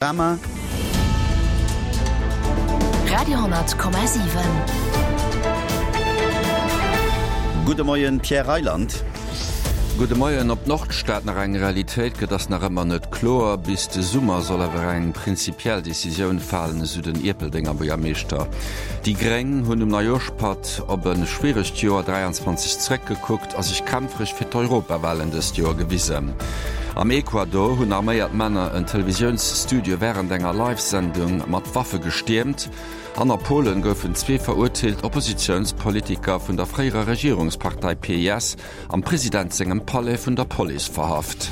Panorama. Radio,7. Gudde Moien, Pierre Reyland. Gudde Moien. Ob d'Nordstad nach eng Realitéit gëtt, ass nach ëmmer net kloer. Bis de Summer soll awer eng prinzipiell Decisioun falen, esou den Ierpeldenger Buergermeeschter. Déi Gréng hunn um Neijooschpatt op e schwieregt Joer 23 zeréckgekuckt a sech kämpfereg fir d'Europawalen dëst Joer gewisen. Am Ecuador hunn arméiert Männer en Televisiounsstudio wärend enger Live-Sendung mat Waffe gestiermt. An a Polen goufen zwee verurteelt Oppositiounspolitiker vun der fréierer Regierungspartei PiS am President sengem Palais vun der Police verhaft.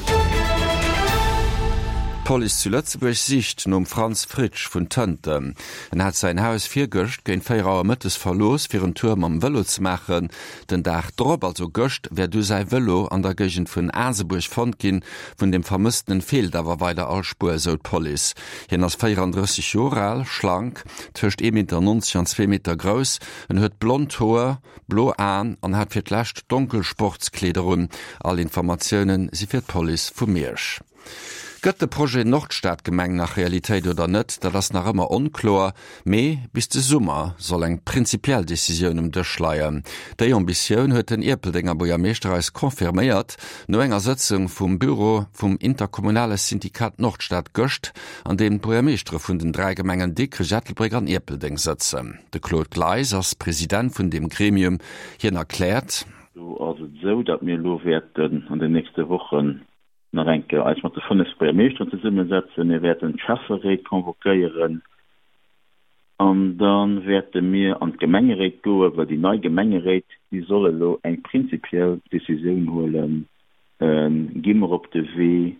D'Police zu Lëtzebuerg sicht nom Franz Fritsch vun Tënten. En hat säin Haus virgëscht géint 4 Auer mëttes verlooss, fir en Tour mam Vëlo ze maachen. Den Dag drop, also gëscht, wär du säi Vëlo an der Géigend vun Asebuerg fonnt ginn. Vun dem Vermësstenen feelt awer weider all Spuer, esou d'Police. Hien ass 34 Joer al, schlank, tëscht ee Meter 90 an zwee Meter grouss. En huet blond Hoer, blo Aen an hat fir d'lescht donkel Sportskleeder un. All Informatioune si fir d'Police vu Miersch. Gëtt de Projet Nordstadgemeng nach Realitéit oder net, dat ass nach ëmmer onkloer. Mee bis de Summer soll eng prinzipiell Decisioun um Dësch leien. Déi Ambitioun huet den Ierpeldenger Buergermeeschter eis confirméiert no enger Sëtzung vum Büro vum interkommunale Syndikat Nordstad gëscht, an deem d'Buergermeeschtere vun den 3 Gemengen Dikrech, Ettelbréck an Ierpeldeng sëtzen. De Claude Gleis ass President vun deem Gremium. Hien erkläert. Do ass et esou, datt mir elo wäerten an den nächste Wochen nach eng Kéier eis mat de 5 Buergermeeschteren zesummesetzen. Mir wäerten d'Schäfferéit convoquéieren an da wäerte mir an d'Gemengeréit goen, well déi nei Gemengeréit, déi soll elo eng prinzipiell Décisioun huelen, Gi mer op de Wee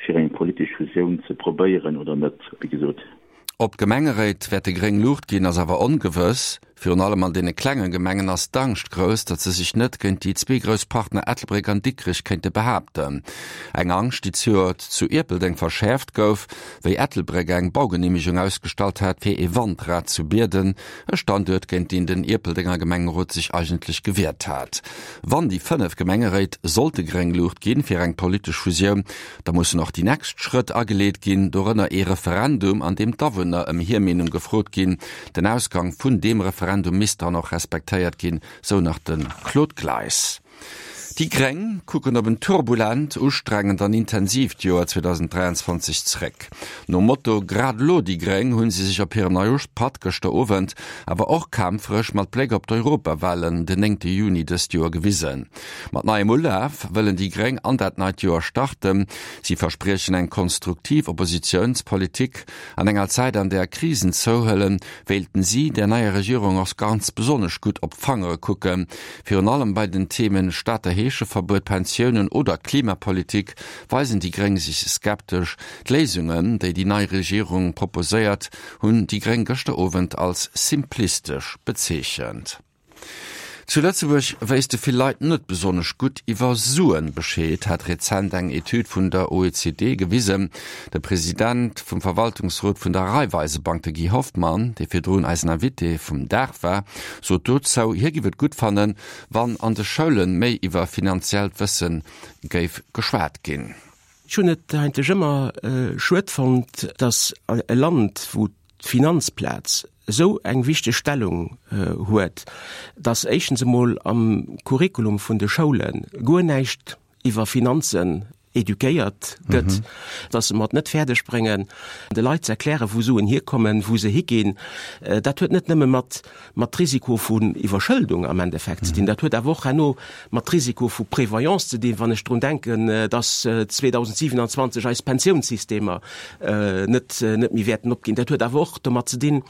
fir eng politesch Fusioun ze probéieren oder net? Wéi gesot. Ob d'Gemengeréit wäerte gréng Luucht ginn, ass awer ongewëss. Virun allem an deene klenge Gemengen ass d'Angscht grouss, datt se sech net géint déi zwee grouss Partner Ettelbréck an Dikrech kéinte behaapten. Eng Angscht, déi zejoert zu Ierpeldeng verschäerft gouf, wéi Ettelbréck eng Baugeneemegung ausgestallt hat fir ee Wandrad zu Bierden, e Standuert, géint deen den Ierpeldenger Gemengerot sech eigentlech gewiert hat. Wann déi 5 Gemengeréit sollte gréng Luucht ginn fir eng politesch Fusioun, Da mussen och déi nächst Schrëtt ageleet ginn, dorënner ee Referendum, an deem d'Awunner ëm hir Meenung gefrot ginn. Den Ausgang vun deem Referendum misst dann och respektéiert ginn, sou nach de Claude Gleis. Déi Gréng kucken op en turbulent, ustrengend an intensiivt Joer 2023 zréck. Nom Motto Grad elo déi Gréng hunn si sech op hirem Neijooschpatt gëschter Owend, awer och kämpferesch mat Bléck op d'Europawalen den 9 Juni dëst Joer gewisen. Mat neiem Ulaf wëllen déi Gréng an dat neit Joer starten. Si verspriechen eng konstruktiv Oppositiounspolitik. An enger Zäit, an där Krisen zouhuelen, wéilten si der neier Regierung och ganz besonnesch gutt op d'Fangere kucken. Virun allem bei den Themen Stater Heescheverbuet, Pensiounen oder Klimapolitik weisen déi Gréng sech skeptesch. D'Léisungen, déi déi nei Regierung proposéiert, hunn déi Gréng gëschter Owend als simplistesch bezeechent. Zu Lëtzebuerg wéisste vill Leit net besonnesch gutt iwwer Suen Bescheed, hat rezent eng Etüd vun der OECD gewisen. De President vum Verwaltungsrot vun der Raiffeisebank, de Guy Hoffmann, dee virdrun eisen Invité vum Dag war, sot dozou, hie giff et gutt fannen, wann an de Schoule méi iwwer finanziellt Wësse géif geschwat ginn. Ech hunn et eigentlech ëmmer schued fonnt, datt e Land, wou d'Finanzplaz esou eng wichteg Stellung huet, datt éischtens emol am Curriculum vun de Schoule guer näischt iwwer Finanzen eduquéiert gëtt, datt se mer et net fäerdeg bréngen, de Leit ze erklären, wou Suen hierkommen, wou se higinn. Dat huet net nëmme mat mat Risiko vun Iwwerschëldung am Endeffekt ze dinn, dat huet awer och herno mat Risiko vu Prévoyance ze dinn, wann ech drun denken, dass 2027 eis Pensiounssystemer net net méi wäerten opginn. Dat huet awer och domat ze dinn,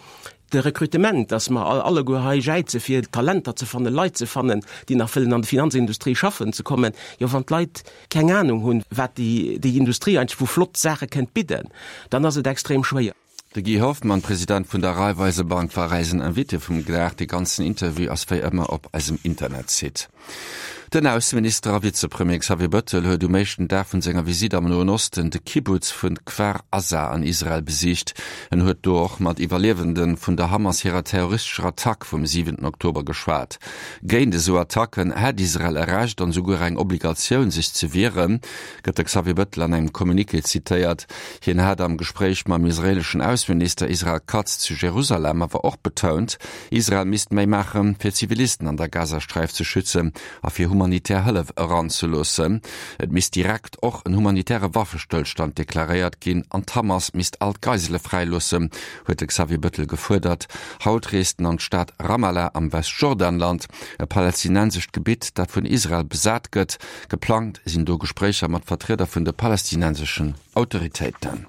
de Recrutement, dass mer alleguer hei jäize fir Talenter ze fannen, Leit ze fannen, déi nach wëllen an de Finanzindustrie schaffen ze kommen. Jo, wann d'Leit keng Anung hunn, wat déi déi Industrie eigentlech vu flott Saache kënnt bidden, dann ass et extrem schwéier. De Guy Hoffmann, President vun der Raiffeisebank, war eisen Invité vum Dag. De ganzen Interview ass wéi ëmmer op eisem Internetsite. Den Ausseminister a Vizepremier Xavier Bëttel huet um éischten Dag vun senger Visitt am Noen Osten de Kibbutz vun Kfar Aza an Israel besicht. En huet do och mat Iwwerliewende vun der Hamas hirer terroristescher Attack vum siwenten Oktober geschwat. Géint esou Attacken hätt Israel e Recht an esouguer eng Obligatioun sech ze wieren, gëtt de Xavier Bëttel an engem Communiqué zitéiert. Hien hat am Gespréich mam israeleschen Ausseminister Israel Katz zu Jerusalem awer och betount, Israel misst méi maachen, fir Zivilisten an der Gazasträif ze schützen a fir humanitär Hëllef eranzeloossen. Et misst direkt och en humanitäre Waffestëllstand deklaréiert ginn an d'Hamas misst all d'Geisele fräiloossen, huet de Xavier Bëttel gefuerdert. Haut reest en an d'Stad Ramallah am Westjordanland, e palästinensescht Gebitt, dat vun Israel besat gëtt. Geplangt sinn do Gespréicher mat Vertrieder vun de palästinenseschen Autoritéiten.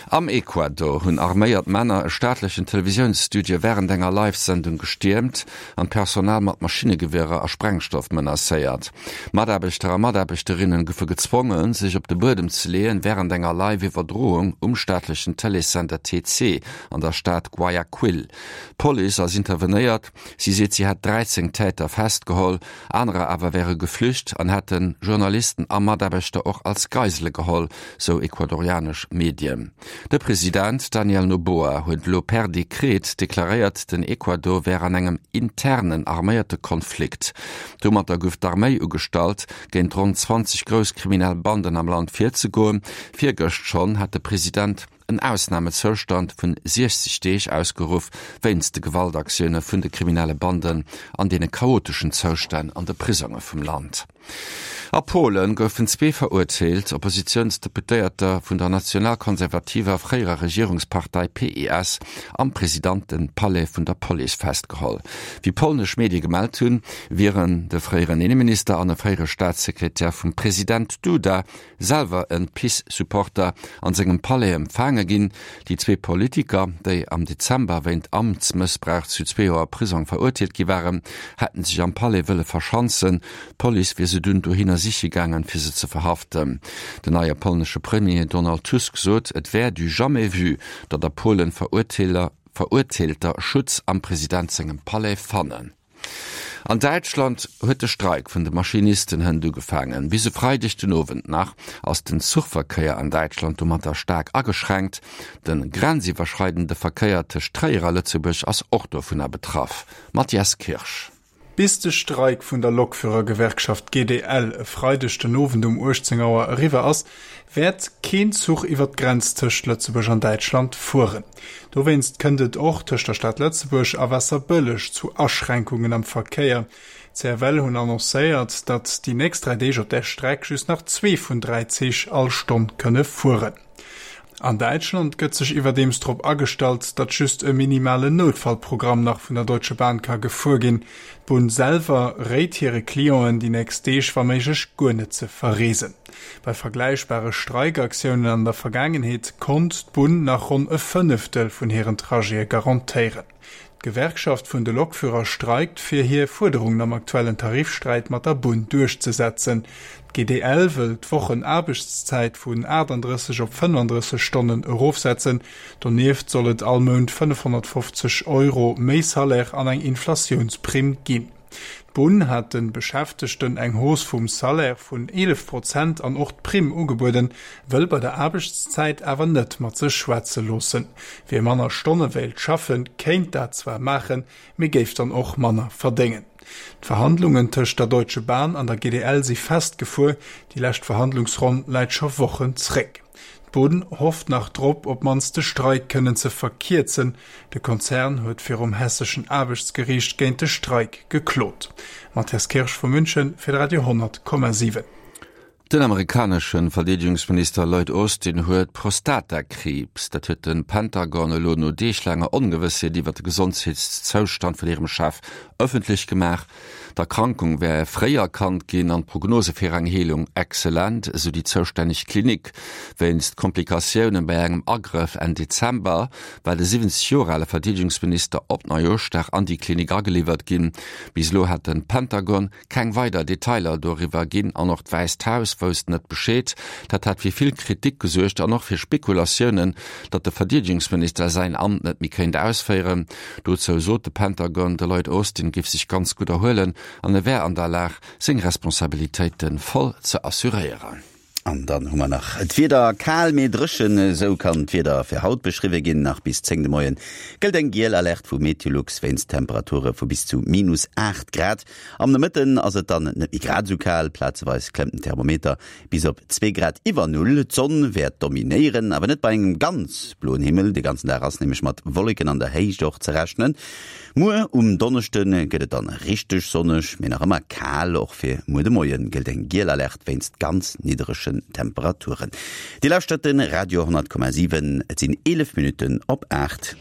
Am Ecuador hunn arméiert Männer e staatlechen Televisiounsstudio wärend enger Live-Sendung gestiermt an d'Personal mat Maschinnegewierer a Sprengstoff menacéiert. Mataarbechter a Mataarbechterinnen goufe gezwongen, sech op de Buedem ze leeën, wärend enger Live-Iwwerdroung um staatlechen Tëleessender TC an der Stad Guayaquil. D'Police ass intervenéiert, si seet, si hätt 13 Täter festgeholl. Anerer awer wäre geflücht an hätte Journalisten a Mataarbechter och als Geisele geholl, sou ecuadorianesch Medien. De President Daniel Noboa huet elo per Dekret deklaréiert, den Ecuador wär an engem internen arméierte Konflikt. Domatter gouf d'Arméi ugestallt, géint ronn 20 grouss kriminell Banden am Land virzegoen. Virgëscht schonn hat de President en Ausnamezoustand vun 60 Deeg ausgeruff, wéinst de Gewaltaktioune vun de kriminelle Banden an deene chaoteschen Zoustänn an de Prisonge vum Land. A Polen goufen zwee verurteelt Oppositiounsdeputéierter vun der nationalkonservativer fréierer Regierungspartei PiS am Presidentepalais vun der Police festgeholl. Wéi polnesch Medie gemellt hunn, wieren de fréieren Inneminister an e fréiere Staatssekretär vum President Duda selwer en PiS-Supporter, an sengem Palais empfaange ginn. Déi zwee Politiker, déi am Dezember wéint Amtsmëssbrauch zu zwee Joer Prisong verurteelt gi waren, hätten sech am Palais wëlle verschanzen. D'Police wier se dunn dohinner siche gaangen, fir se ze verhaften. Den neie polnesche Premier Donald Tusk sot, et wär du jamais vu, datt a Polen Verurteelter Schutz am President sengem Palais fannen. An Däitschland huet de Streik vun de Maschinisten hënt ugefaangen. Bis e Freideg den Owend nach ass den Zuchverkéier an Däitschland domatter staark ageschränkt. De grenziwwerschreidende Verkéier tëscht Tréier a Lëtzebuerg ass och dovunner betraff. Mathias Kirsch. Bis de Streik vun der Lokführergewerkschaft GDL e Freideg den Owend um 18 Auer eriwwer ass, wäert keen Zuch iwwer d'Grenz tëscht Lëtzebuerg an Däitschland fueren. Dowéinst kënnt et och tëscht der Stad Lëtzebuerg a Waasserbëlleg zu Aschränkungen am Verkéier. D'CFL hunn annoncéiert, datt déi nächst 3 Deeg op där Streck just nach zwee vun 3 Zich all Stonn kënne fueren. An Däitschland gëtt sech iwwerdeems drop agestallt, datt just e minimalen Noutfallprogramm nach vun der Deutsche Bahn ka gefuer ginn. D'Bunn selwer réit hire Clienten, déi nächst Deeg wa méiglech guer net ze verreesen. Bei vergläichbare Streikaktiounen an der Vergaangenheet konnt d'Bunn nach ronn e Fënneftel vun hiren Trajete garantéieren. D'Gewerkschaft vun de Lokführer streikt, fir hir Fuerderungen am aktuellen Tarifsträit mat der Bunn duerchzesetzen. D'GDL wëll d'Wochenaarbechtszäit vun 38 op 35 Stonnen erofsetzen. Donieft soll et all Mount 550 Euro méi Salaire an eng Inflatiounsprimm ginn. D'Bunn hat de Beschäftegten eng Hausse vum Salaire vun 11 Prozent an och d'Primm ugebueden, wëll bei der Aarbechtszäit awer net mat sech schwätze loossen. Wie manner Stonne wéilt schaffen, kéint dat zwar maachen, mee géif dann och manner verdéngen. D'Verhandlungen tëscht der Deutsche Bahn an der GDL si festgefuer, déi lescht Verhandlungsronn läit scho Wochen zréck. D'Bunn hofft nach drop, op d'mannst de Streik kënnen ze verkierzen. De Konzern huet virum hesseschen Aarbechtsgeriicht géint de Streik geklot. Matthias Kirsch vu München fir de Radio 10,7. Den amerikanesche Verdeedegungsminister Lloyd Austin huet Prostatakriibs. Dat huet de Pentagon elo no deeglaanger Ongewëssheet iwwer de Gesondheetszoustand vun hirem Chef ëffentlech gemaach. D'Erkrankung wär fréi erkannt ginn an d'Prognose fir eng Heelung excellent, esou déi zoustänneg Klinik. Wéinst Komplikatioune bei engem Agrëff Enn Dezember war de 70 Joer ale Verdeedegungsminister op Neijooschdag an déi Klinik ageliwwert ginn. Bis elo hat de Pentagon keng weider Detailer doriwwer ginn an och d'Wäisst Haus. Haus wousst net Bescheed. Dat hat fir vill Kritik gesuergt an och fir Spekulatiounen, datt de Verdeedegungsminister säin Amt net méi kéint ausféieren. Dozou sot de Pentagon, de Lloyd Austin géif sech ganz gutt erhuelen an e wär an der Lag, seng Responsabilitéite voll ze assuréieren. An dann hu mer nach d'Wieder, Kal mee dréchen, esou kann d'Wieder fir haut beschriwwe ginn. Nach bis 10 de Moien gëllt eng giel Alerte vu Meteolux wéinst Temperature vu bis zu minus 8 Grad. Am Nomëtten ass et dann net méi grad esou kal, plazeweis klëmmt den Thermometer bis op zwee Grad iwwer Null. D'Sonn wäert dominéieren, awer net bei engem ganz bloen Himmel. De ganzen Dag ass nämlech mat Wolleken an der Héicht och ze rechnen. Muer um Donneschde gëtt et dann richteg sonneg, mee nach ëmmer kal. Och fir muer de Moie gëllt eng giel Alerte wéinst ganz nidderegen Temperaturen. Dir lauschtert de Radio 10,7, et sinn 11 Minutten op 8.